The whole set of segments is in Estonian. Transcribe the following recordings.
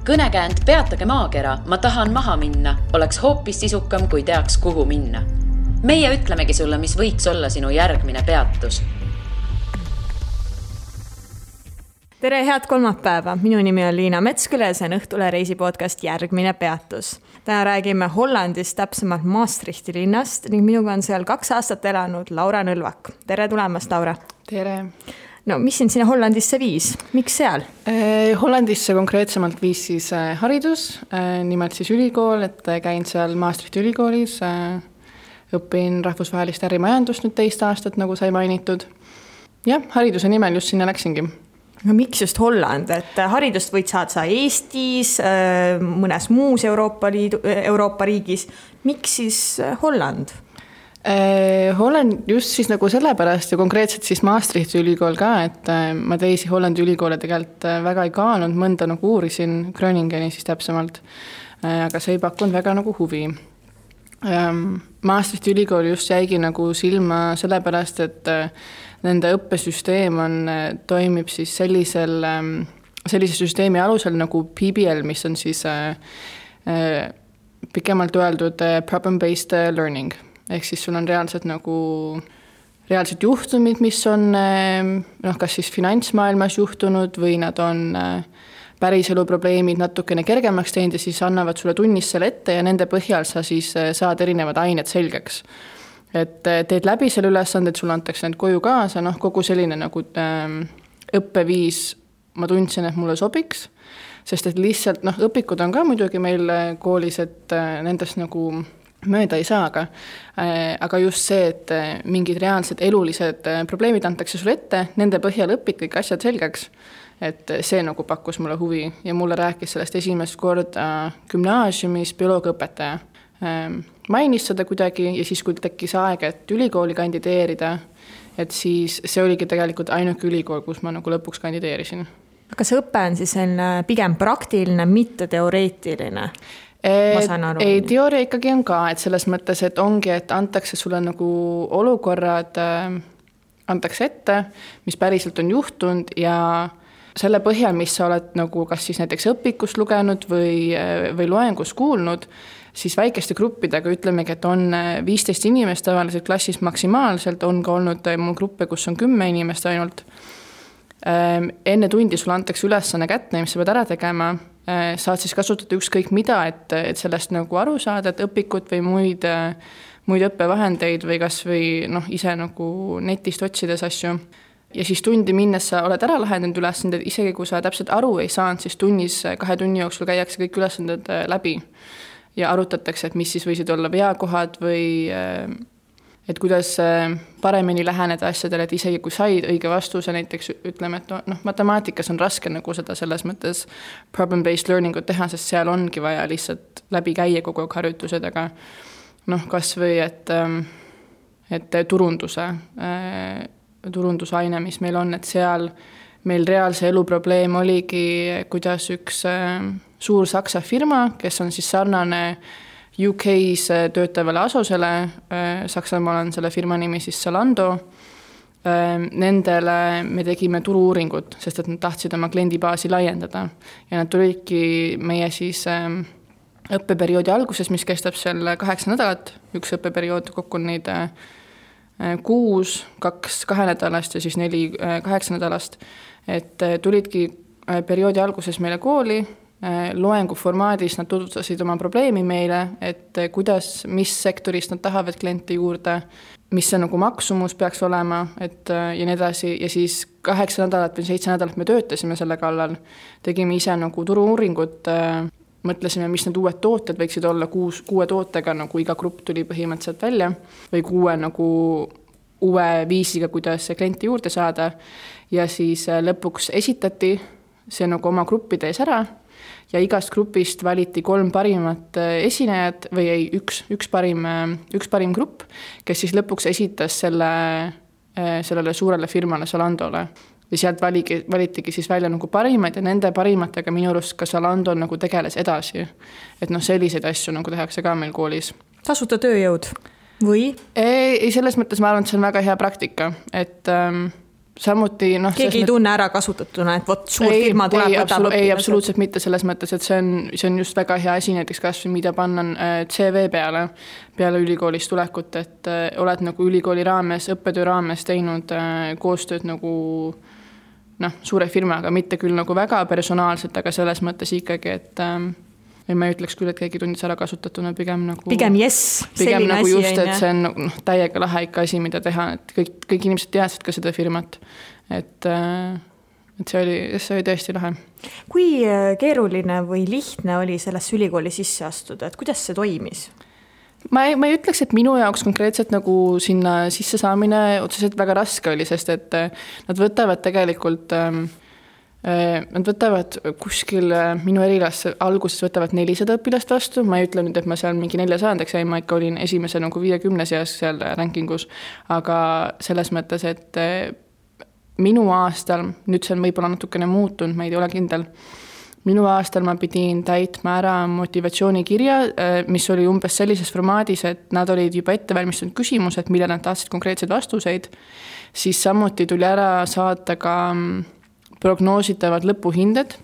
Kõnekäänd Peatage maakera, ma tahan maha minna, oleks hoopis sisukam, kui teaks, kuhu minna. Meie ütlemegi sulle, mis võiks olla sinu järgmine peatus. Tere, head kolmapäeva! Minu nimi on Liina Metsküle ja see on Õhtule reisipodcast Järgmine peatus. Täna räägime Hollandist, täpsemalt Maastrichti linnast ning minuga on seal 2 aastat elanud Laura Nõlvak. Tere tulemast, Laura! Tere! No, mis sind sinna Hollandisse viis? Miks seal? Hollandisse konkreetsemalt viis siis haridus, nimelt siis ülikool, et käin seal Maastrichti ülikoolis, õpin rahvusvahelist ärimajandust nüüd 2 aastat, nagu sai mainitud. Ja, hariduse nimel just sinna läksingi. No, miks just Holland? Et haridust võid saada Eestis, mõnes muus Euroopa riigis. Miks siis Holland? Holland just siis nagu sellepärast ja konkreetselt siis Maastrichti ülikool ka, et ma teisi Hollandi ülikoole tegelikult väga ei kaalunud, mõnda nagu uurisin Groningeni siis täpsemalt, aga see ei pakkunud väga nagu huvi. Maastrichti ülikool just jäigi nagu silma sellepärast, et nende õppesüsteem toimib siis sellise süsteemi alusel nagu PBL, mis on siis pikemalt öeldud problem-based learning. Ehk siis sul on reaalselt juhtumid, mis on kas siis finantsmaailmas juhtunud või nad on päriselu probleemid natukene kergemaks teinud ja siis annavad sulle tunnis selle ette ja nende põhjal sa siis saad erinevad ained selgeks. Et teed läbi selle ülesanded, sulle antakse need koju kaasa, kogu selline nagu õppeviis ma tundsin, et mulle sobiks, sest et lihtsalt õpikud on ka muidugi meil koolis, et nendest nagu mööda ei saa, aga just see, et mingid reaalsed elulised probleemid antakse sulle ette, nende põhjal õpid kõik asjad selgeks, et see nagu pakkus mulle huvi ja mulle rääkis sellest esimest korda gümnaasiumis bioloogiaõpetaja. Mainis seda kuidagi ja siis, kui tekkis aeg, et ülikooli kandideerida, et siis see oligi tegelikult ainuke ülikool, kus ma nagu lõpuks kandideerisin. Kas õpe on siis pigem praktiline, mitte teoreetiline? Ei, teooria ikkagi on ka, et selles mõttes, et ongi, et antakse sulle nagu olukorrad, antakse ette, mis päriselt on juhtunud ja selle põhjal, mis sa oled nagu kas siis näiteks õpikust lugenud või loengus kuulnud, siis väikeste gruppidega ütlemegi, et on 15 inimest tavaliselt klassis maksimaalselt, on ka olnud mul gruppe, kus on 10 inimest ainult. Enne tundi sulle antakse ülesanne kätte, mis sa pead ära tegema, saad siis kasutada ükskõik mida, et sellest nagu aru saada, et õpikut või muid õppevahendeid või kas või ise nagu netist otsides asju. Ja siis tundi minnes sa oled ära lahendanud ülesanded, isegi kui sa täpselt aru ei saanud, siis tunnis 2 tunni jooksul käiakse kõik ülesanded läbi ja arutatakse, et mis siis võisid olla veakohad või et kuidas paremini läheneda asjadele, et isegi kui said õige vastuse, näiteks ütleme, et matemaatikas on raske nagu seda selles mõttes problem-based learningut teha, sest seal ongi vaja lihtsalt läbi käia kogu aeg harjutused, aga kas või, et turundusaine, mis meil on, et seal meil reaalse elu probleem oligi, kuidas üks suur Saksa firma, kes on siis sarnane UK-s töötavale Asosele, Saksamaal on selle firma nimi siis Zalando, nendele me tegime turu-uuringut, sest et nad tahtsid oma kliendibaasi laiendada ja nad tulidki meie siis õppeperioodi alguses, mis kestab seal 8 nädalat, üks õppeperiood kokku on neid 6, 2 nädalast ja siis 4 8 nädalast, et tulidki perioodi alguses meile kooli, loengu formaadis nad tutvustasid oma probleemi meile, et kuidas, mis sektorist nad tahavad kliente juurde, mis see nagu maksumus peaks olema, et ja nii edasi. Ja siis 8 nädalat või 7 nädalat me töötasime selle kallal, tegime ise nagu turu-uuringut, mõtlesime, mis need uued tooted võiksid olla, 6 tootega, nagu iga grupp tuli põhimõtteliselt välja, või 6 nagu uue viisiga, kuidas klienti juurde saada. Ja siis lõpuks esitati see nagu oma gruppide ees ära, ja igast grupist valiti 3 parimat esinejad või ei, üks parim grupp, kes siis lõpuks esitas sellele suurele firmale Zalandole. Ja sealt valitigi siis välja nagu parimad ja nende parimatega minu arust ka Zalando nagu tegeles edasi. Et selliseid asju nagu tehakse ka meil koolis. Tasuta tööjõud või? Ei, selles mõttes ma arvan, et see on väga hea praktika, et samuti keegi ei tunne ära kasutatuna, et vot suur firma tuleb, võtab õpilased. Ei, absoluutselt mitte selles mõttes, et see on just väga hea asi näiteks kas või mida panna CV peale ülikoolist tulekut, et oled nagu ülikooli raames, õppetöö raames teinud koostööd nagu suure firmaga, mitte küll nagu väga personaalselt, aga selles mõttes ikkagi, et ma ei ütleks küll, et keegi tundis ära kasutatuna, pigem yes, pigem nagu just, et see on täiega lahe ikka asi, mida teha, et kõik inimesed teadsid ka seda firmat, et see oli tõesti lahe. Kui keeruline või lihtne oli sellesse ülikooli sisse astuda, et kuidas see toimis? Ma ei ütleks, et minu jaoks konkreetselt nagu sinna sisse saamine otseselt väga raske oli, sest et nad võtavad tegelikult nad võtavad kuskil minu erilasse alguses võtavad 400 õpilast vastu, ma ei ütle nüüd, et ma seal mingi 400-ndaks jäin, ma ikka olin esimese nagu 50 seas seal rankingus, aga selles mõttes, et minu aastal, nüüd see on võib-olla natukene muutunud, ma ei ole kindel, minu aastal ma pidin täitma ära motivatsioonikirja, mis oli umbes sellises formaadis, et nad olid juba ette valmistunud küsimused, mille nad tahtsid konkreetseid vastuseid, siis samuti tuli ära saata ka prognoositavad lõpuhinded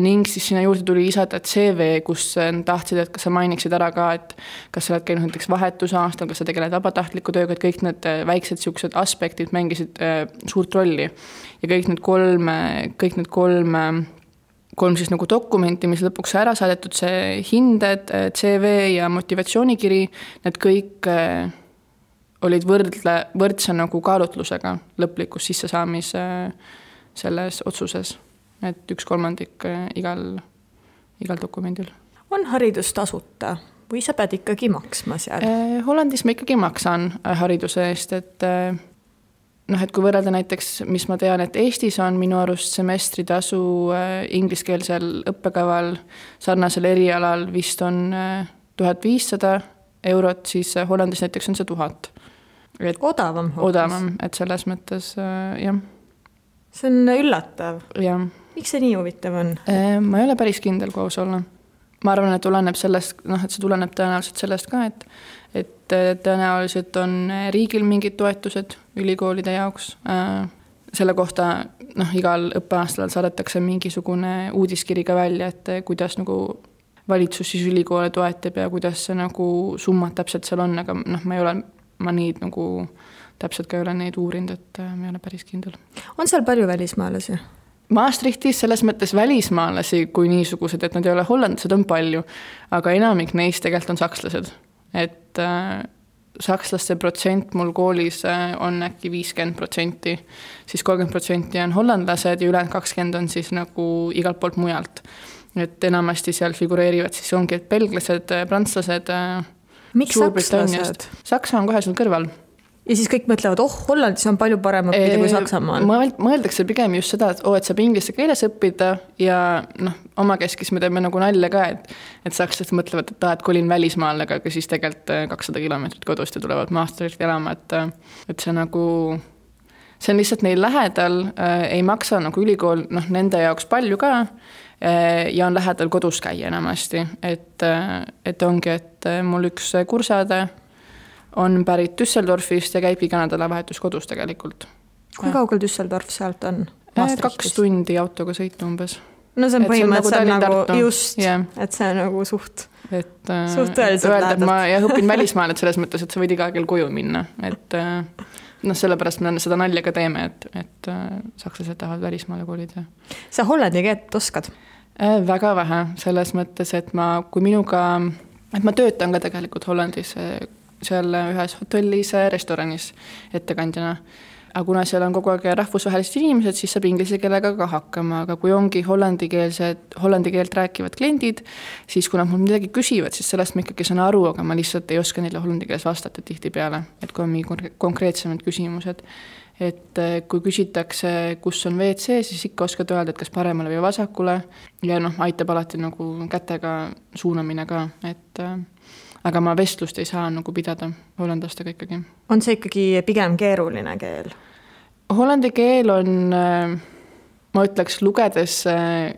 ning siis sinna juurde tuli lisada CV, kus tahtsid, et kas sa mainiksid ära ka, et kas sa oled käinud näiteks vahetusaastal, kas sa tegeled vabatahtliku tööga, et kõik need väiksed siuksed aspektid mängisid suurt rolli. Ja kõik need kolm siis nagu dokumenti, mis lõpuks ära saadetud, see hinded, CV ja motivatsioonikiri, need kõik olid võrdse nagu kaalutlusega lõplikus sissesaamise selles otsuses, et 1/3 igal dokumendil. On haridus tasuta või sa pead ikkagi maksma seal? Hollandis ma ikkagi maksan hariduse eest, et kui võrrelda näiteks, mis ma tean, et Eestis on minu arust semestritasu ingliskeelsel õppekaval sarnasel erialal vist on 1500 €, siis Hollandis näiteks on see 1000. Odavam, et selles mõttes, jah. See on üllatav. Ja. Miks see nii huvitav on? Ma ei ole päris kindel, kui aus olla. Ma arvan, et tuleneb sellest, et see tuleneb tõenäoliselt sellest ka, et tõenäoliselt on riigil mingid toetused ülikoolide jaoks. Selle kohta igal õppeaastal saadetakse mingisugune uudiskiri ka välja, et kuidas nagu valitsus siis ülikoole toetab ja kuidas see nagu summad täpselt seal on, aga ma neid nagu täpselt ka ei ole neid uurinud, et ma ei ole päris kindel. On seal palju välismaalasi? Maastrichtis selles mõttes välismaalasi kui niisugused, et nad ei ole hollandlased, on palju, aga enamik neist tegelikult on sakslased. Et sakslaste protsent mul koolis on äkki 50%, siis 30% on hollandlased ja ülejäänud 20% on siis nagu igalt poolt mujalt. Et enamasti seal figureerivad siis ongi et belglased, prantslased, miks sakslased? Saksa on kohe seal kõrval. Ja siis kõik mõtlevad, Hollandis on palju parem õppida kui Saksamaal. Mõeldakse pigem just seda, et saab inglise keeles õppida ja oma keskis me teeme nagu nalja ka, et sakslased mõtlevad, et kolin välismaal, aga siis tegelikult 200 kilomeetrit kodust ja tulevad Maastrichti elama, et see nagu, see on lihtsalt neil lähedal, ei maksa nagu ülikool nende jaoks palju ka ja on lähedal kodus käia enamasti, et ongi, et mul üks kursade on pärit Düsseldorfist ja käibki ka nädalavahetus kodus tegelikult. Kui kaugel Düsseldorf sealt on? 2 tundi autoga sõita umbes. No see on põhimõtteliselt nagu just, et see on nagu suht tõeliselt lähedalt. Ma õpin välismaal, et selles mõttes, et sa võid iga kell koju minna. Et sellepärast me seda nalja ka teeme, et sakslased tahavad välismaale koolida. Sa hollandi keelt oskad? Väga vähe, selles mõttes, et ma töötan ka tegelikult Hollandis seal ühes hotellis, restoranis ettekandjana. Aga kuna seal on kogu aeg rahvusvahelised inimesed, siis saab inglise keelega ka hakkama, aga kui ongi hollandi keelt rääkivad kliendid, siis kui nad mul midagi küsivad, siis sellest ma ikkagi saan aru, aga ma lihtsalt ei oska neile hollandi keeles vastata tihti peale, et kui on mingi konkreetsemad küsimused. Et kui küsitakse, kus on WC, siis ikka oskad öelda, et kas paremale või vasakule ja aitab alati nagu kätega suunamine ka, et aga ma vestlust ei saa nagu pidada hollandlastega ikkagi. On see ikkagi pigem keeruline keel? Hollandi keel on, ma ütleks, lugedes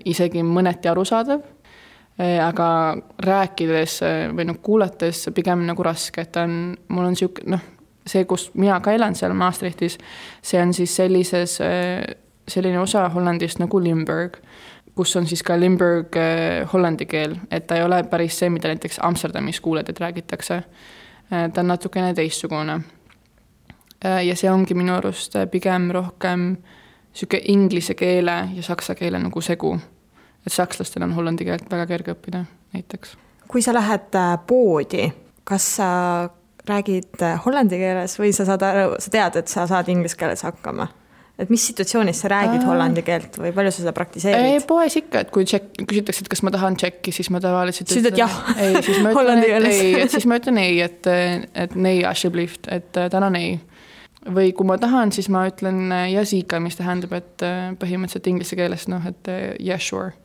isegi mõneti arusaadav, aga rääkides või kuulates pigem nagu raske, et mul on siuke, see, kus mina ka elan seal Maastrichtis, see on siis selline osa Hollandist nagu Limburg, kus on siis ka Limburg hollandi keel, et ta ei ole päris see, mida näiteks Amsterdamis kuuled, et räägitakse. Ta on natukene teistsugune. Ja see ongi minu arust pigem rohkem siuke inglise keele ja saksa keele nagu segu. Et sakslastel on hollandi keelt väga kerge õppida näiteks. Kui sa lähed poodi, kas sa räägid hollandi keeles või sa tead, et sa saad inglise keeles hakkama? Et mis situatsioonis sa räägid hollandi keelt või palju sa seda praktiseerid? Poes ikka, et kui küsitakse, et kas ma tahan tšekki, siis ma tavaliselt siis ütlen jah, siis ma ütlen, siis ma ütlen ei, et nei asjeblieft, et täna ei. Või kui ma tahan, siis ma ütlen jasika, mis tähendab, et põhimõtteliselt inglise keeles, et yeah, sure.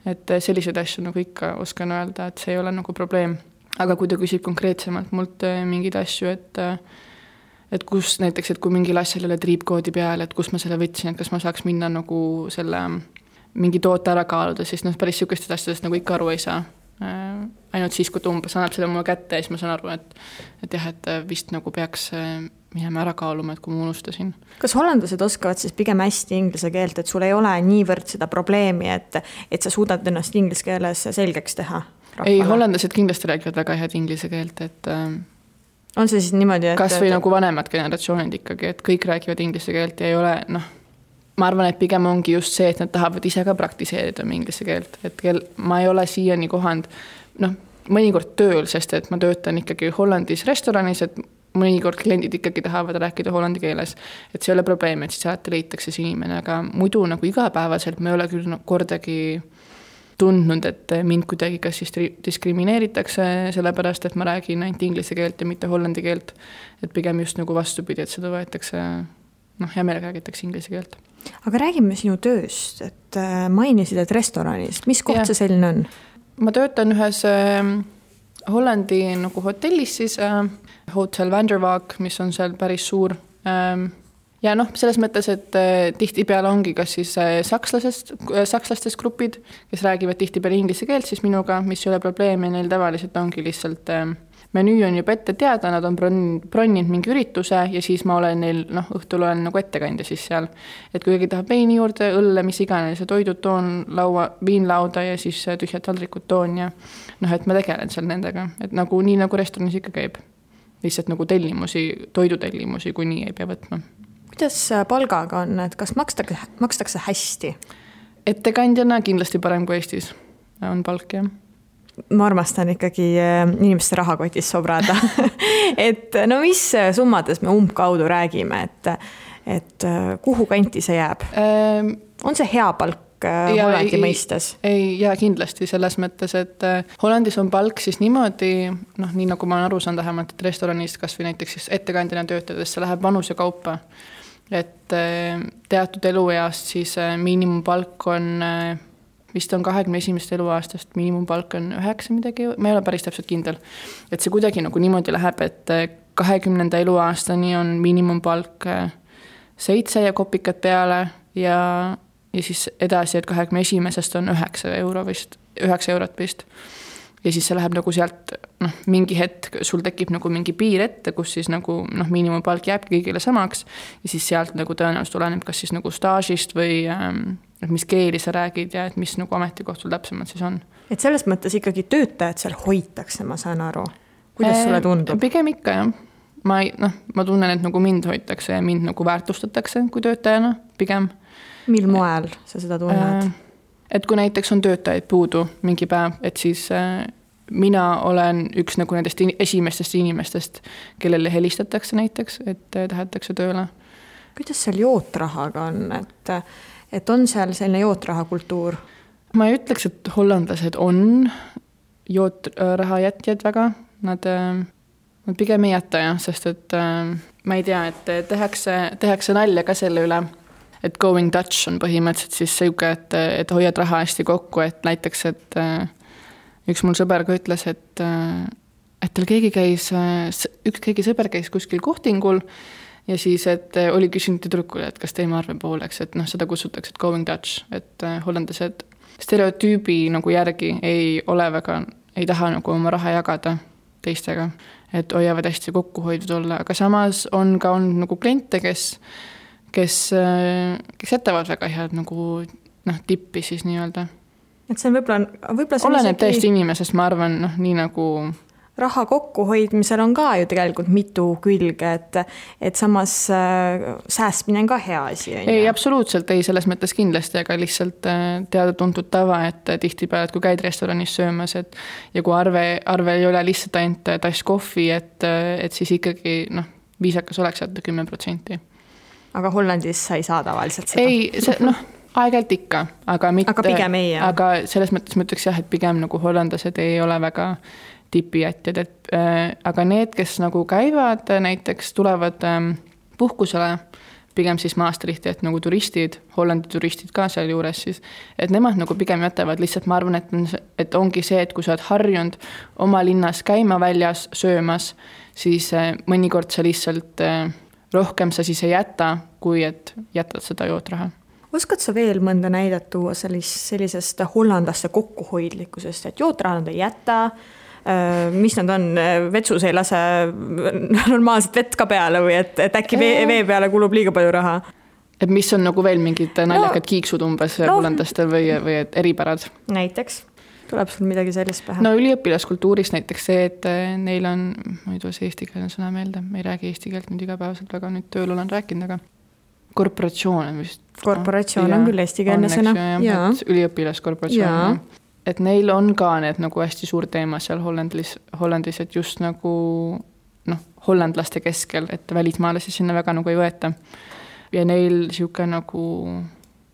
Et sellised asju nagu ikka oskan öelda, et see ei ole nagu probleem. Aga kui ta küsib konkreetsemalt mult mingid asju, et kus näiteks, et kui mingil asjal ei ole triipkoodi peal, et kus ma selle võtsin, et kas ma saaks minna nagu selle mingi toote ära kaaluda, siis päris sihukestest asjadest nagu ikka aru ei saa. Ainult siis, kui ta umbes annab selle mulle kätte ja siis ma saan aru, et jah, et vist nagu peaks minema ära kaaluma, et kui ma unustasin. Kas hollandlased oskavad siis pigem hästi inglise keelt, et sul ei ole niivõrd seda probleemi, et sa suudad ennast inglise keeles selgeks teha? Rahvale? Ei, hollandlased kindlasti räägivad väga head inglise keelt, et on see siis niimoodi, et kas või nagu vanemad generatsioonid ikkagi, et kõik räägivad inglise keelt ja ei ole, ma arvan, et pigem ongi just see, et nad tahavad ise ka praktiseerida inglise keelt, et ma ei ole siiani kohanud, mõnikord tööl, sest et ma töötan ikkagi Hollandis restoranis, et mõnikord kliendid ikkagi tahavad rääkida hollandi keeles, et see ei ole probleem, et siis alati leitakse see inimene, aga muidu nagu igapäevaselt me ei ole küll kordagi tundnud, et mind kuidagi kas siis diskrimineeritakse sellepärast, et ma räägin ainult inglise keelt ja mitte hollandi keelt. Et pigem just nagu vastupidi, et seda võetakse, hea meelega räägitakse inglise keelt. Aga räägime sinu tööst, et mainisid, et restoranis. Mis koht see selline on? Ma töötan ühes Hollandi nagu hotellis siis, Hotel Vanderwaag, mis on seal päris suur. Ja selles mõttes, et tihtipeale ongi kas siis sakslastest grupid, kes räägivad tihtipeale inglise keelt, siis minuga, mis ei ole probleemi, neil tavaliselt ongi lihtsalt menüü on juba ette teada, nad on bronninud mingi ürituse ja siis ma olen neil, õhtul olen nagu ettekandja siis seal. Et kui keegi tahab veini juurde, õlle, mis iganes, toidud toon, viinlauda ja siis tühjad taldrikud toon ja et ma tegelen seal nendega, et nagu nii nagu restoranis ikka käib. Lihtsalt nagu toidutellimusi, kui nii ei pea võtma. Kuidas palgaga on, et kas makstakse hästi? Ettekandjana kindlasti parem kui Eestis on palk, jah. Ma armastan ikkagi inimeste rahakotis sobrada. Et mis summades me umbkaudu räägime, et kuhu kanti see jääb? On see hea palk Hollandi mõistes? Ei, kindlasti selles mõttes, et Hollandis on palk siis niimoodi, nii nagu ma olen aru saanud vähemalt, et restoranist kas või näiteks siis ettekandjana töötades, see läheb vanuse kaupa. Et teatud elueast siis miinimumpalk on, vist on 21. eluaastast, miinimumpalk on 9 midagi, ma ei ole päris täpselt kindel. Et see kuidagi nagu niimoodi läheb, et 20. eluaastani on miinimumpalk 7 ja kopikad peale ja siis edasi, et 21. on 9 eurot vist. Ja siis see läheb nagu sealt, mingi hetk sul tekib nagu mingi piir ette, kus siis nagu, miinimumpalk jääb kõigile samaks ja siis sealt nagu tõenäoliselt oleneb kas siis nagu staažist või mis keeli sa räägid ja et mis nagu ametikohtul täpsemalt siis on. Et selles mõttes ikkagi töötajad seal hoitakse, ma saan aru. Kuidas sulle tundub? Pigem ikka, jah. Ma tunnen, et nagu mind hoitakse ja mind nagu väärtustatakse kui töötajana, pigem. Mil moel sa seda tunned? Et kui näiteks on töötajaid puudu mingi päev, et siis mina olen üks nagu nendest esimestest inimestest, kellele helistatakse näiteks, et tahetakse tööle. Kuidas seal jootrahaga on? Et on seal selline jootraha kultuur? Ma ei ütleks, et hollandlased on jootraha jätjad väga. Nad pigem ei jäta, jah, sest et ma ei tea, et tehakse nalja ka selle üle. Et going Dutch on põhimõtteliselt siis selge, et hoiad raha hästi kokku, et näiteks, et üks mul sõber ka ütles, et tal keegi sõber käis kuskil kohtingul ja siis, et oli küsinud tüdrukule, et kas teeme arve pooleks, et seda kutsutakse, et going Dutch, et hollandlased stereotüübi nagu järgi ei taha nagu oma raha jagada. teistega, et hoiavad hästi kokkuhoidnud olla, aga samas on ka olnud nagu kliente, kes jätavad väga head nagu tippi siis nii-öelda. Et see on võib-olla oleneb täiesti inimesest, ma arvan, nii nagu raha kokkuhoidmisel on ka ju tegelikult mitu külge, et samas säästmine on ka hea asi. Ei, absoluutselt ei, selles mõttes kindlasti, aga lihtsalt teada-tuntud tava, et tihtipeale, et kui käid restoranis söömas, ja kui arve ei ole lihtsalt ainult tass kohvi, et siis ikkagi viisakas oleks jätta 10%. Aga Hollandis sa ei saa tavaliselt seda? Ei, aeg-ajalt ikka, aga mitte. Aga pigem ei, jah? Aga selles mõttes ma ütleks jah, et pigem nagu hollandased ei ole väga tipijätjad, aga need, kes nagu käivad, näiteks tulevad puhkusele, pigem siis Maastrichti, et nagu turistid, Hollandi turistid ka seal juures siis, et nemad nagu pigem jätavad, lihtsalt ma arvan, et ongi see, et kui sa oled harjunud oma linnas käima väljas söömas, siis mõnikord sa lihtsalt rohkem sa siis ei jäta, kui et jätad seda jootraha. Oskad sa veel mõnda näidet tuua sellisest hollandaste kokkuhoidlikkusest, et jootraha nad ei jäta, mis nad on, vetsus ei lase normaalselt vett ka peale või et äkki vee peale kulub liiga palju raha? Et mis on nagu veel mingid naljakad kiiksud umbes hollandastel või eripärad? Näiteks, tuleb sul midagi sellist pähe? No üliõpilaskultuuris näiteks see, et neil on, ma ei tule see eesti keele sõna meelde, ma ei räägi eesti keelt nüüd igapäevaselt väga, nüüd tööl olen rääkinud, aga korporatsioon on vist. Korporatsioon on küll eesti keelne sõna. Üliõpilaskorporatsioon. Et neil on ka need nagu hästi suur teema seal Hollandis, et just nagu hollandlaste keskel, et välismaalasi sinna väga nagu ei võeta. Ja neil siuke nagu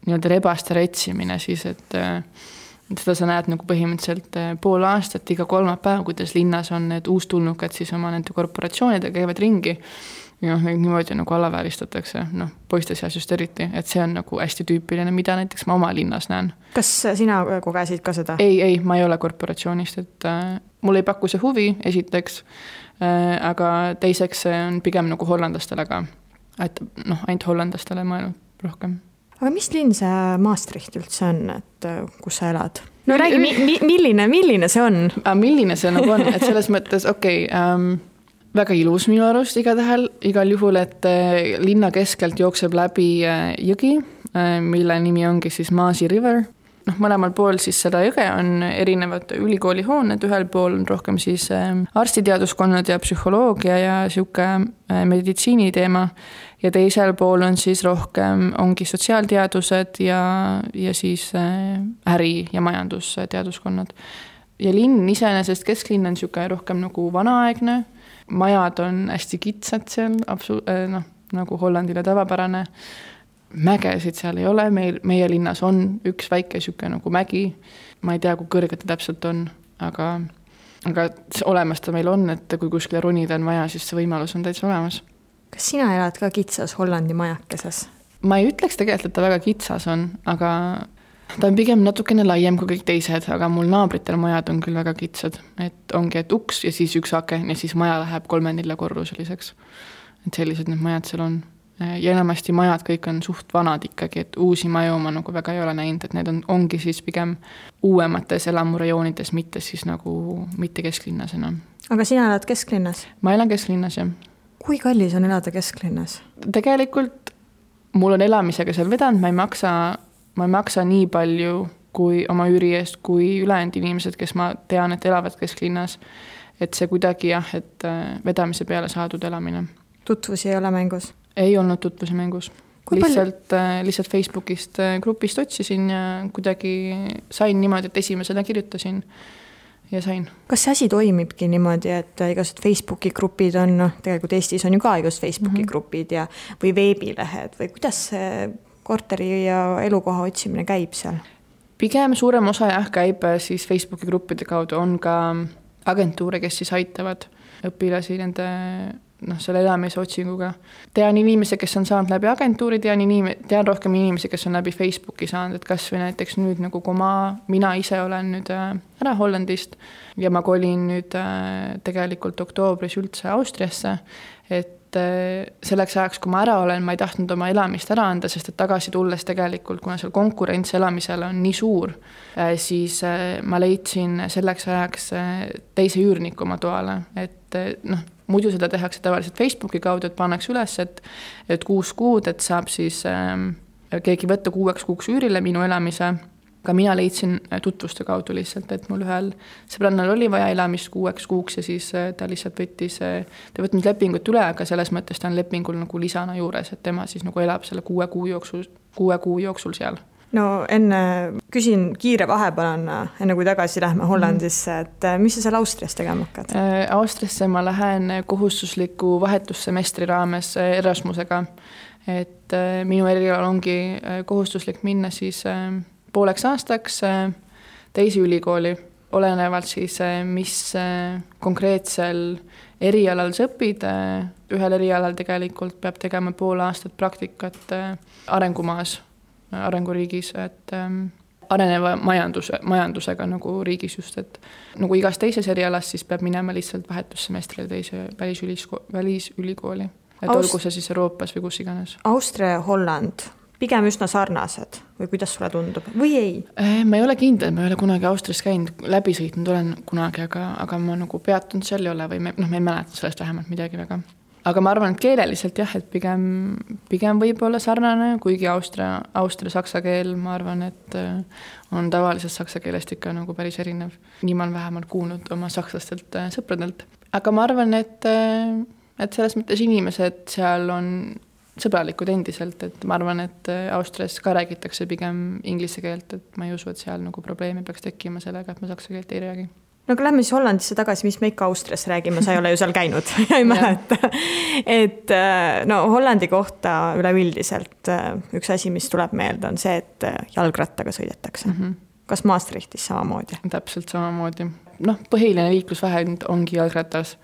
nii-öelda rebaste retsimine siis, et seda sa näed nagu põhimõtteliselt pool aastat iga kolmapäev, kuidas linnas on need uustulnukad siis oma nende korporatsioonidega käivad ringi. Ja niimoodi nagu alavääristatakse, poiste seas just eriti, et see on nagu hästi tüüpiline, mida näiteks ma oma linnas näen. Kas sina kogesid ka seda? Ei, ma ei ole korporatsioonist, et mul ei paku see huvi esiteks, aga teiseks on pigem nagu hollandastele ka, et ainult hollandastele mõelnud rohkem. Aga mis linn see Maastricht üldse on, et kus sa elad? No räägi, milline see on? Milline see nagu on, et selles mõttes, väga ilus minu arust igal juhul, et linna keskelt jookseb läbi jõgi, mille nimi ongi siis Maasi River. Mõlemal pool siis seda jõge on erinevad ülikoolihooned, ühel pool on rohkem siis arstiteaduskonnad ja psühholoogia ja siuke meditsiini teema ja teisel pool on siis rohkem ongi sotsiaalteadused ja siis äri- ja majandusteaduskonnad. Ja linn iseenesest kesklinn on siuke rohkem nagu vanaaegne, majad on hästi kitsad seal, nagu Hollandile tavapärane. Mägesid seal ei ole, meie linnas on üks väike siuke nagu mägi. Ma ei tea, kui kõrge ta täpselt on, aga olemas ta meil on, et kui kuskile ronida on vaja, siis see võimalus on täitsa olemas. Kas sina elad ka kitsas Hollandi majakeses? Ma ei ütleks tegelikult, et ta väga kitsas on, aga ta on pigem natukene laiem kui kõik teised, aga mul naabritel majad on küll väga kitsad, et ongi, et uks ja siis üks aken ja siis maja läheb 3-4 korruseliseks. Et sellised need majad seal on. Ja enamasti majad kõik on suht vanad ikkagi, et uusi maju ma nagu väga ei ole näinud, et need ongi siis pigem uuemates elamurajoonides, mitte siis nagu mitte kesklinnas enam. Aga sina elad kesklinnas? Ma elan kesklinnas, jah. Kui kallis on elada kesklinnas? Tegelikult mul on elamisega seal vedanud, ma ei maksa nii palju kui oma üüri eest, kui ülejäänud inimesed, kes ma tean, et elavad kesklinnas. Et see kuidagi jah, et vedamise peale saadud elamine. Tutvusi ei ole mängus? Ei olnud tutvusi mängus. Lihtsalt Facebookist grupist otsisin ja kuidagi sain niimoodi, et esimesena kirjutasin ja sain. Kas see asi toimibki niimoodi, et igased Facebooki grupid on, tegelikult Eestis on ju ka igased Facebooki grupid või veebilehed või kuidas see korteri ja elukoha otsimine käib seal? Pigem suurem osa käib siis Facebooki gruppide kaudu, on ka agentuure, kes siis aitavad õpilasi nende selle elamise otsinguga. Tean inimesi, kes on saanud läbi agentuuri, tean rohkem inimesi, kes on läbi Facebooki saanud, et kas või näiteks nüüd nagu kui mina ise olen nüüd ära Hollandist ja ma kolin nüüd tegelikult oktoobris üldse Austriasse, et selleks ajaks, kui ma ära olen, ma ei tahtnud oma elamist ära anda, sest et tagasi tulles tegelikult, kuna seal konkurents elamisel on nii suur, siis ma leidsin selleks ajaks teise üürniku oma toale, et muidu seda tehakse tavaliselt Facebooki kaudu, et pannakse üles, et 6 kuud, et saab siis keegi võtta 6 kuuks üürile minu elamise. Ka mina leidsin tutvuste kaudu lihtsalt, et mul ühel sõbrannal oli vaja elamist 6 kuuks ja siis ta lihtsalt ta võtnud lepingut üle, aga selles mõttes ta on lepingul nagu lisana juures, et tema siis nagu elab selle 6 kuu jooksul seal. No enne küsin kiire vahepealana, enne kui tagasi lähme Hollandisse, et mis sa seal Austrias tegema hakkad? Austriasse ma lähen kohustusliku vahetussemestri raames Erasmusega, et minu erialal ongi kohustuslik minna siis pooleks aastaks teise ülikooli, olenevalt siis, mis konkreetsel erialal sa õpid. Ühel erialal tegelikult peab tegema pool aastat praktikat arengumaas, arenguriigis, et areneva majandusega nagu riigis just, et nagu igas teises erialas siis peab minema lihtsalt vahetussemestrile teise välisülikooli, et olgu see siis Euroopas või kus iganes. Austria ja Holland pigem üsna sarnased või kuidas sulle tundub või ei? Ma ei ole kindel, ma ei ole kunagi Austrias käinud, läbi sõitnud olen kunagi, aga ma nagu peatunud seal ei ole või ma ei mäleta sellest vähemalt midagi väga. Aga ma arvan, et keeleliselt jah, et pigem võib olla sarnane, kuigi Austria saksa keel, ma arvan, et on tavalisest saksa keelest ikka nagu päris erinev. Nii ma olen vähemalt kuulnud oma sakslastelt sõpradelt. Aga ma arvan, et selles mõttes inimesed seal on sõbralikud endiselt, et ma arvan, et Austrias ka räägitakse pigem inglise keelt, et ma ei usu, et seal nagu probleemi peaks tekkima sellega, et ma saksa keelt ei räägi. No aga lähme siis Hollandisse tagasi, mis me ikka Austrias räägime, sa ei ole ju seal käinud, ei mäleta. Et no Hollandi kohta üleüldiselt üks asi, mis tuleb meelde, on see, et jalgrattaga sõidetakse. Kas Maastrichtis samamoodi? Täpselt samamoodi. Põhiline liiklusvahend ongi jalgratas.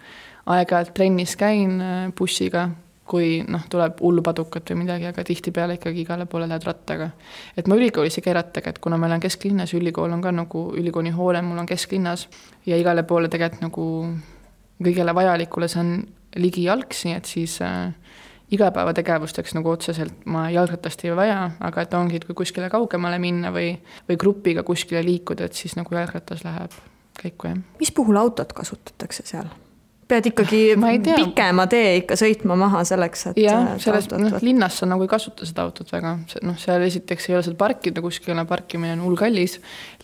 Aeg-ajalt trennis käin bussiga, kui tuleb hullupadukat või midagi, aga tihtipeale ikkagi igale poole lähed rattaga. Et ma ülikoolis ei käi rattaga, et kuna meil on kesklinnas, ülikool on ka nagu ülikooli hoone, mul on kesklinnas ja igale poole tegelikult nagu kõigele vajalikule see on ligi jalgsi, et siis igapäevategevusteks nagu otseselt ma jalgratast ei vaja, aga et ongi, et kui kuskile kaugemale minna või grupiga kuskile liikuda, et siis nagu jalgratas läheb käiku. Mis puhul autot kasutatakse seal? Pead ikkagi pikema tee ikka sõitma maha selleks, et linnas sa nagu ei kasuta seda autot väga. Seal esiteks ei ole seal parkida, kuskil parkimine on hullkallis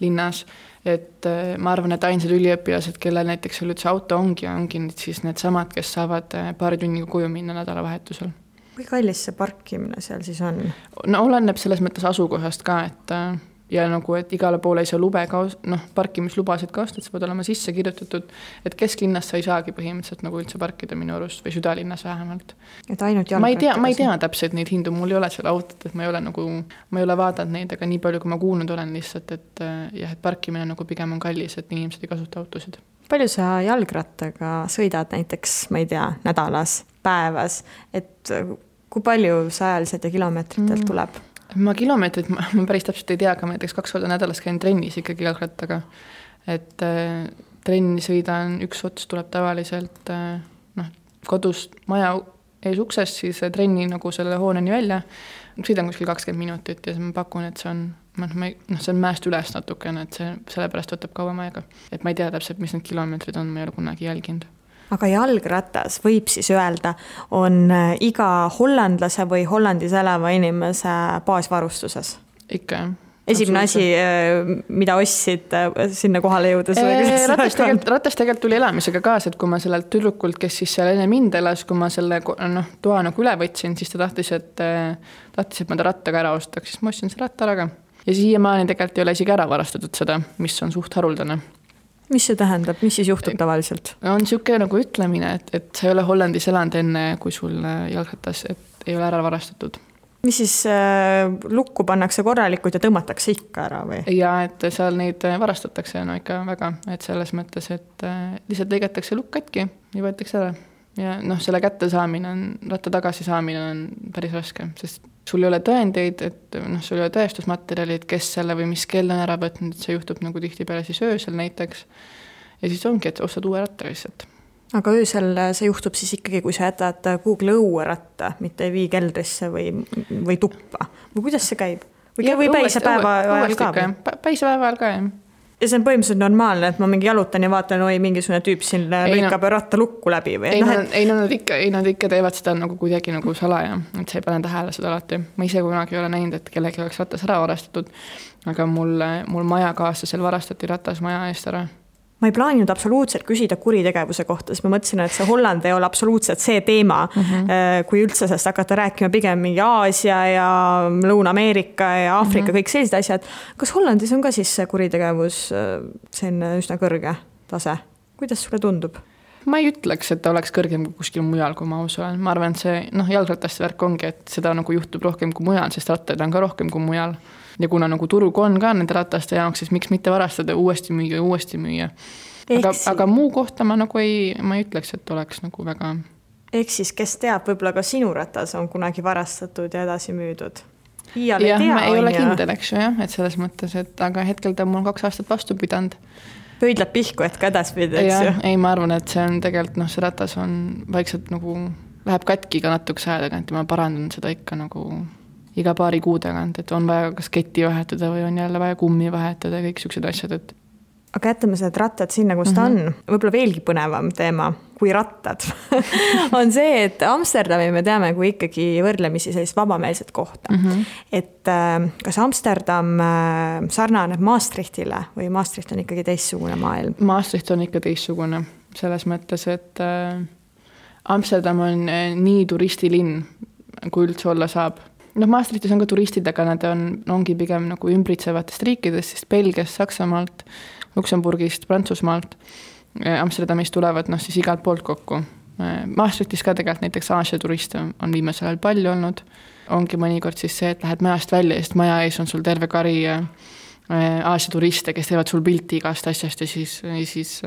linnas, et ma arvan, et ainsad üliõpilased, kellel näiteks üldse auto ongi siis need samad, kes saavad paari tunniga koju minna nädalavahetusel. Kui kallis see parkimine seal siis on? No oleneb selles mõttes asukohast ka, et ja nagu, et igale poole ei saa parkimislubasid ka osta, et see peavad olema sisse kirjutatud, et kesklinnas sa ei saagi põhimõtteliselt nagu üldse parkida minu arust või südalinnas vähemalt. Et ainult ma ei tea täpselt neid hindu, mul ei ole seal autot, et ma ei ole vaadanud neid, aga nii palju, kui ma kuulnud olen lihtsalt, et parkimine nagu pigem on kallis, et inimesed ei kasuta autosid. Palju sa jalgrattaga sõidad näiteks, ma ei tea, nädalas, päevas, et kui palju sa ajaliselt ja kilomeetritelt tuleb? Ma kilomeetrit, ma päris täpselt ei tea, aga ma näiteks 2 korda nädalas käin trennis ikkagi jalgrattaga. Et trenni sõidan, üks ots tuleb tavaliselt kodust maja ees uksest, siis trenni nagu selle hooneni välja. Sõidan kuskil 20 minutit ja ma pakun, et see on mäest üles natukene, et see sellepärast võtab kauem aega. Et ma ei tea täpselt, mis need kilomeetrid on, ma ei ole kunagi jälginud. Aga jalgratas võib siis öelda, on iga hollandlase või Hollandis elava inimese baasvarustuses? Ikka, jah. Esimene asi, mida ostsid sinna kohale jõudes? Ratas tegelikult tuli elamisega kaasa, et kui ma sellelt tüdrukult, kes siis seal enne mind elas, kui ma selle toa nagu üle võtsin, siis ta tahtis, et ma ta rattaga ära ostaks, siis ma ostsin selle ratta ära. Ja siiamaani tegelikult ei ole isegi ära varastatud seda, mis on suht haruldane. Mis see tähendab? Mis siis juhtub tavaliselt? On siuke nagu ütlemine, et sa ei ole Hollandis elanud enne, kui sul jalgratas, et ei ole ära varastatud. Mis siis lukku pannakse korralikult ja tõmmatakse ikka ära või? Ja, et seal neid varastatakse ikka väga, et selles mõttes, et lihtsalt lõigatakse lukk katki ja võetakse ära. Ja selle kätte saamine on, ratta tagasi saamine on päris raske, sest sul ei ole tõendeid, et sul ei ole tõestusmaterjalid, kes selle või mis kell on ära võtnud, et see juhtub nagu tihtipeale siis öösel näiteks. Ja siis ongi, et ostad uue ratta lihtsalt. aga öösel see juhtub siis ikkagi, kui sa jätad Google õueratta, mitte ei vii keldrisse või tuppa. Või kuidas see käib? Või päise päeva ajal ka? Päise päeva ajal ka, jah. Ja see on põhimõtteliselt normaalne, et ma mingi jalutan ja vaatan, mingisugune tüüp siin lõikab ratta lukku läbi või? Nad ikka teevad seda nagu kuidagi nagu salaja, et sa ei pane tähele seda alati. Ma ise kunagi ei ole näinud, et kellegi oleks ratas ära varastatud, aga mul majakaaslasel varastati ratas maja eest ära. Ma ei plaaninud absoluutselt küsida kuritegevuse kohta, sest ma mõtlesin, et see Holland ei ole absoluutselt see teema, kui üldse sest hakata rääkima pigem mingi Aasia ja Lõuna-Ameerika ja Aafrika, kõik sellised asjad. Kas Hollandis on ka siis see kuritegevus selline üsna kõrge tase? Kuidas sulle tundub? Ma ei ütleks, et ta oleks kõrgem kui kuskil mujal, kui ma aus olen. Ma arvan, et see jalgrattaste värk ongi, et seda nagu juhtub rohkem kui mujal, sest rattaid on ka rohkem kui mujal. Ja kuna nagu turg on ka nende rataste jaoks, siis miks mitte varastada uuesti müüa. Aga muu kohta ma nagu ma ei ütleks, et oleks nagu väga... Ehk siis, kes teab, võib-olla ka sinu ratas on kunagi varastatud ja edasi müüdud? Ma ei ole kindel, eks ju, jah, et selles mõttes, aga hetkel ta mul 2 aastat vastu pidanud. Pöidleb pihku, et ka edaspidi, eks ju? Ei, ma arvan, et see on tegelikult, see ratas on vaikselt nagu, läheb katki ka natuke aja tagant ja ma parandan seda ikka nagu iga paari kuu tagant, et on vaja kas ketti vahetada või on jälle vaja kummi vahetada ja kõik sellised asjad, et... Aga jätame need rattad sinna, kus ta on. Võib-olla veelgi põnevam teema kui rattad on see, et Amsterdami me teame kui ikkagi võrdlemisi sellist vabameelset kohta. Et kas Amsterdam sarnaneb Maastrichtile või Maastricht on ikkagi teistsugune maailm? Maastricht on ikka teistsugune selles mõttes, et Amsterdam on nii turistilinn, kui üldse olla saab. Maastrichtis on ka turistid, aga nad ongi pigem nagu ümbritsevatest riikidest, siis Belgiast, Saksamaalt, Luksemburgist, Prantsusmaalt, Amsterdamist tulevad siis igalt poolt kokku. Maastrichtis ka tegelikult näiteks Aasia turiste on viimasel ajal palju olnud. Ongi mõnikord siis see, et lähed majast välja ja maja ees on sul terve kari Aasia turiste, kes teevad sul pilti igast asjast ja siis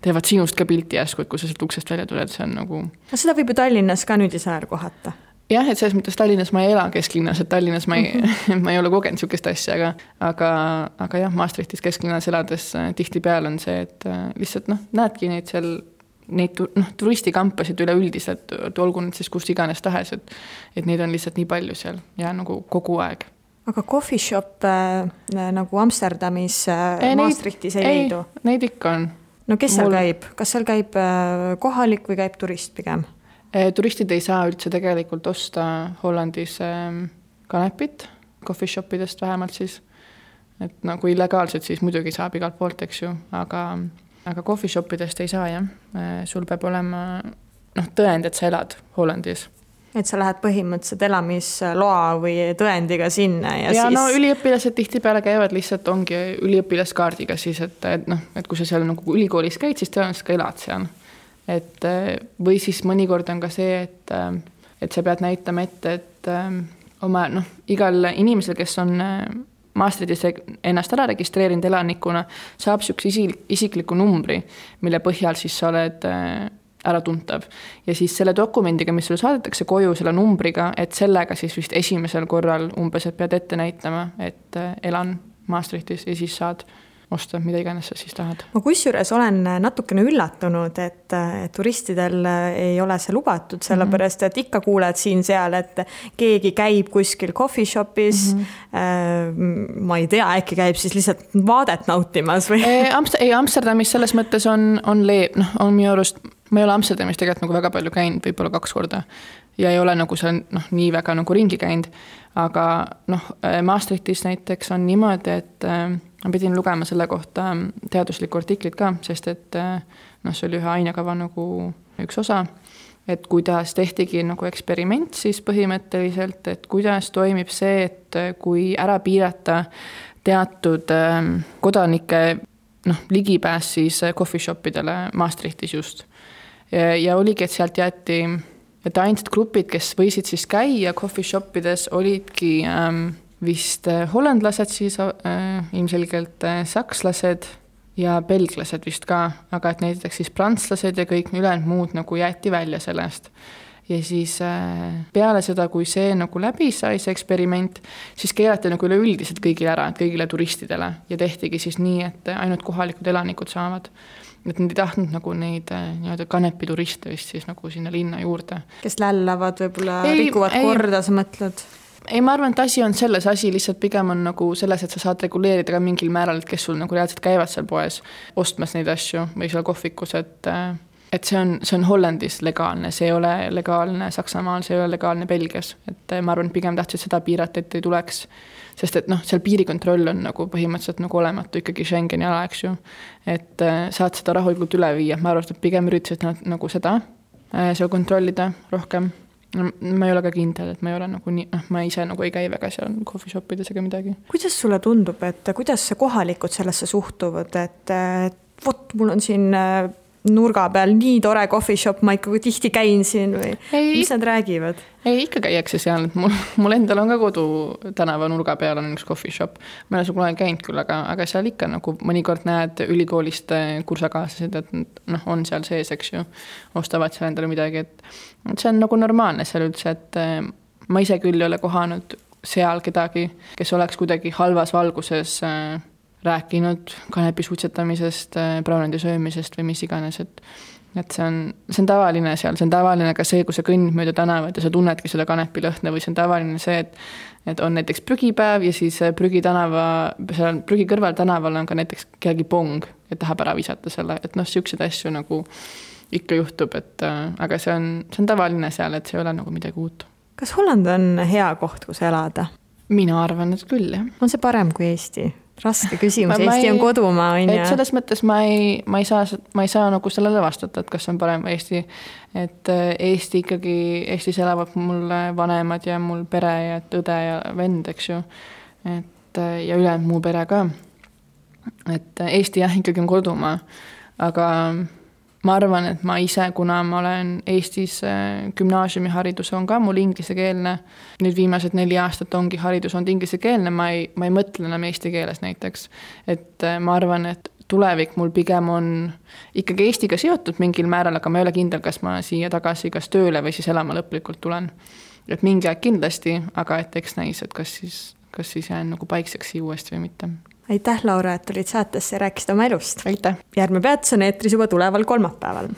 teevad sinust ka pilti järsku, et kui sa sealt uksest välja tuled, see on nagu... Seda võib ju Tallinnas ka nüüd isajal kohata. Jah, et selles mõttes Tallinnas ma ei ela kesklinnas, et Tallinnas ma ei ole kogenud sükest asja, aga jah, Maastrichtis kesklinnas elades tihti peal on see, et lihtsalt näedki neid turistikampasid üleüldiselt, olgu nüüd siis kust iganes tahes, et neid on lihtsalt nii palju seal ja nagu kogu aeg. Aga coffee shop nagu Amsterdamis Maastrichtis ei leidu? Neid ikka on. No kes seal käib? Kas seal käib kohalik või käib turist pigem? Turistid ei saa üldse tegelikult osta Hollandis kanepit, coffee shopidest vähemalt siis, et nagu illegaalselt siis muidugi saab igalt poolt, eks ju, aga coffee shopidest ei saa, jah. Sul peab olema tõend, et sa elad Hollandis. Et sa lähed põhimõtteliselt elamisloa või tõendiga sinna ja siis... üliõpilased tihti peale käivad lihtsalt ongi üliõpilaskaardiga siis, et kui sa seal nagu ülikoolis käid, siis tõenäoliselt ka elad seal. Või siis mõnikord on ka see, et sa pead näitama ette, et oma igal inimesel, kes on Maastrichtis ennast ära registreerinud elanikuna, saab sükse isikliku numbri, mille põhjal siis sa oled ära tuntav. Ja siis selle dokumendiga, mis sulle saadetakse koju selle numbriga, et sellega siis vist esimesel korral umbes, et pead ette näitama, et elan Maastrichtis ja siis saad osta, mida iganes sa siis tahad. Ma kusjuures olen natukene üllatunud, et turistidel ei ole see lubatud, sellepärast, et ikka kuuled siin seal, et keegi käib kuskil coffee shopis, ma ei tea, äkki käib siis lihtsalt vaadet nautimas või? Amsterdamis selles mõttes on minu arust, ma ei ole Amsterdamis tegelikult nagu väga palju käinud, võib-olla 2 korda ja ei ole nagu see nii väga nagu ringi käinud, aga Maastrichtis näiteks on niimoodi, et ma pidin lugema selle kohta teaduslikku artiklit ka, sest et see oli ühe ainekava nagu üks osa, et kuidas tehtigi nagu eksperiment siis põhimõtteliselt, et kuidas toimib see, et kui ära piirata teatud kodanike ligipääs siis coffee shopidele Maastrichtis just. Ja oligi, et sealt jäeti, et ainsad grupid, kes võisid siis käia coffee shopides, olidki vist hollandlased siis, ilmselgelt sakslased ja belglased vist ka, aga et näiteks siis prantslased ja kõik ülejäänud muud nagu jäeti välja sellest. ja siis peale seda, kui see nagu läbi sai, see eksperiment, siis keelati nagu üleüldiselt kõigile ära, kõigile turistidele ja tehtigi siis nii, et ainult kohalikud elanikud saavad. Et nad ei tahtnud nagu neid kanepituriste vist siis nagu sinna linna juurde. Kes lällavad, võib-olla rikuvad korda, sa mõtled? Ei, ma arvan, et asi on selles, asi lihtsalt pigem on nagu selles, et sa saad reguleerida ka mingil määral, et kes sul nagu reaalselt käivad seal poes ostmas neid asju või seal kohvikus, et see on Hollandis legaalne, see ei ole legaalne Saksamaal, see ei ole legaalne Belgias. Et ma arvan, et pigem tahtsid seda piirata, et ei tuleks, sest et seal piirikontroll on nagu põhimõtteliselt nagu olematu ikkagi Schengeni ala, eks ju. Et saad seda rahulikult üle viia, ma arvan, et pigem üritasid nagu seda kontrollida rohkem. Ma ei ole ka kindel, et ma ei ole nagu nii, ma ise nagu ei käi väga seal coffee shopides ega midagi. Kuidas sulle tundub, et kuidas kohalikud sellesse suhtuvad, et vot mul on siin nurga peal nii tore coffee shop, ma ikka tihti käin siin või mis nad räägivad? Ei, ikka käiakse seal, et mul endal on ka kodu tänava nurga peal on üks coffee shop. Ma olen kunagi käinud küll, aga seal ikka nagu mõnikord näed ülikoolist kursakaaslased, et on seal sees, eks ju, ostavad seal endale midagi, et see on nagu normaalne seal üldse, et ma ise küll ei ole kohanud seal kedagi, kes oleks kuidagi halvas valguses rääkinud kanepi suitsetamisest, brownendi söömisest või mis iganes, et see on tavaline seal, see on tavaline ka see, kui sa kõnnid mööda tänavat ja sa tunnedki seda kanepi lõhna või see on tavaline see, et on näiteks prügipäev ja siis prügi kõrval tänaval on ka näiteks kellegi pong, et tahab ära visata selle, et siuksed asju nagu ikka juhtub, aga see on tavaline seal, et see ei ole nagu midagi uut. Kas Holland on hea koht, kus elada? Mina arvan, et küll, jah. On see parem kui Eesti? Raske küsimus, Eesti on kodumaa. Et selles mõttes ma ei saa nagu sellele vastata, et kas on parem Eesti. Et Eestis elavad mul vanemad ja mul pere ja õde ja vend, eks ju. Ja üle muu pere ka. Et Eesti jah, ikkagi on kodumaa. Aga ma arvan, et ma ise, kuna ma olen Eestis gümnaasiumiharidus on ka mul inglisekeelne, nüüd viimased 4 aastat ongi haridus on inglisekeelne, ma ei mõtle enam eesti keeles näiteks. Et ma arvan, et tulevik mul pigem on ikkagi Eestiga seotud mingil määral, aga ma ei ole kindel, kas ma siia tagasi kas tööle või siis elama lõplikult tulen. Et mingi aeg kindlasti, aga et eks näis, et kas siis jään nagu paikseks siia uuesti või mitte. Aitäh, Laura, et olid saatesse ja rääkisid oma elust. Aitäh. Järgmine peatus on eetris juba tuleval kolmapäeval.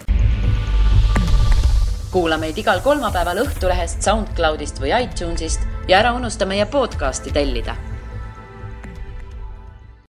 Kuula meid igal kolmapäeval Õhtulehest, SoundCloudist või iTunesist ja ära unusta meie podcasti tellida.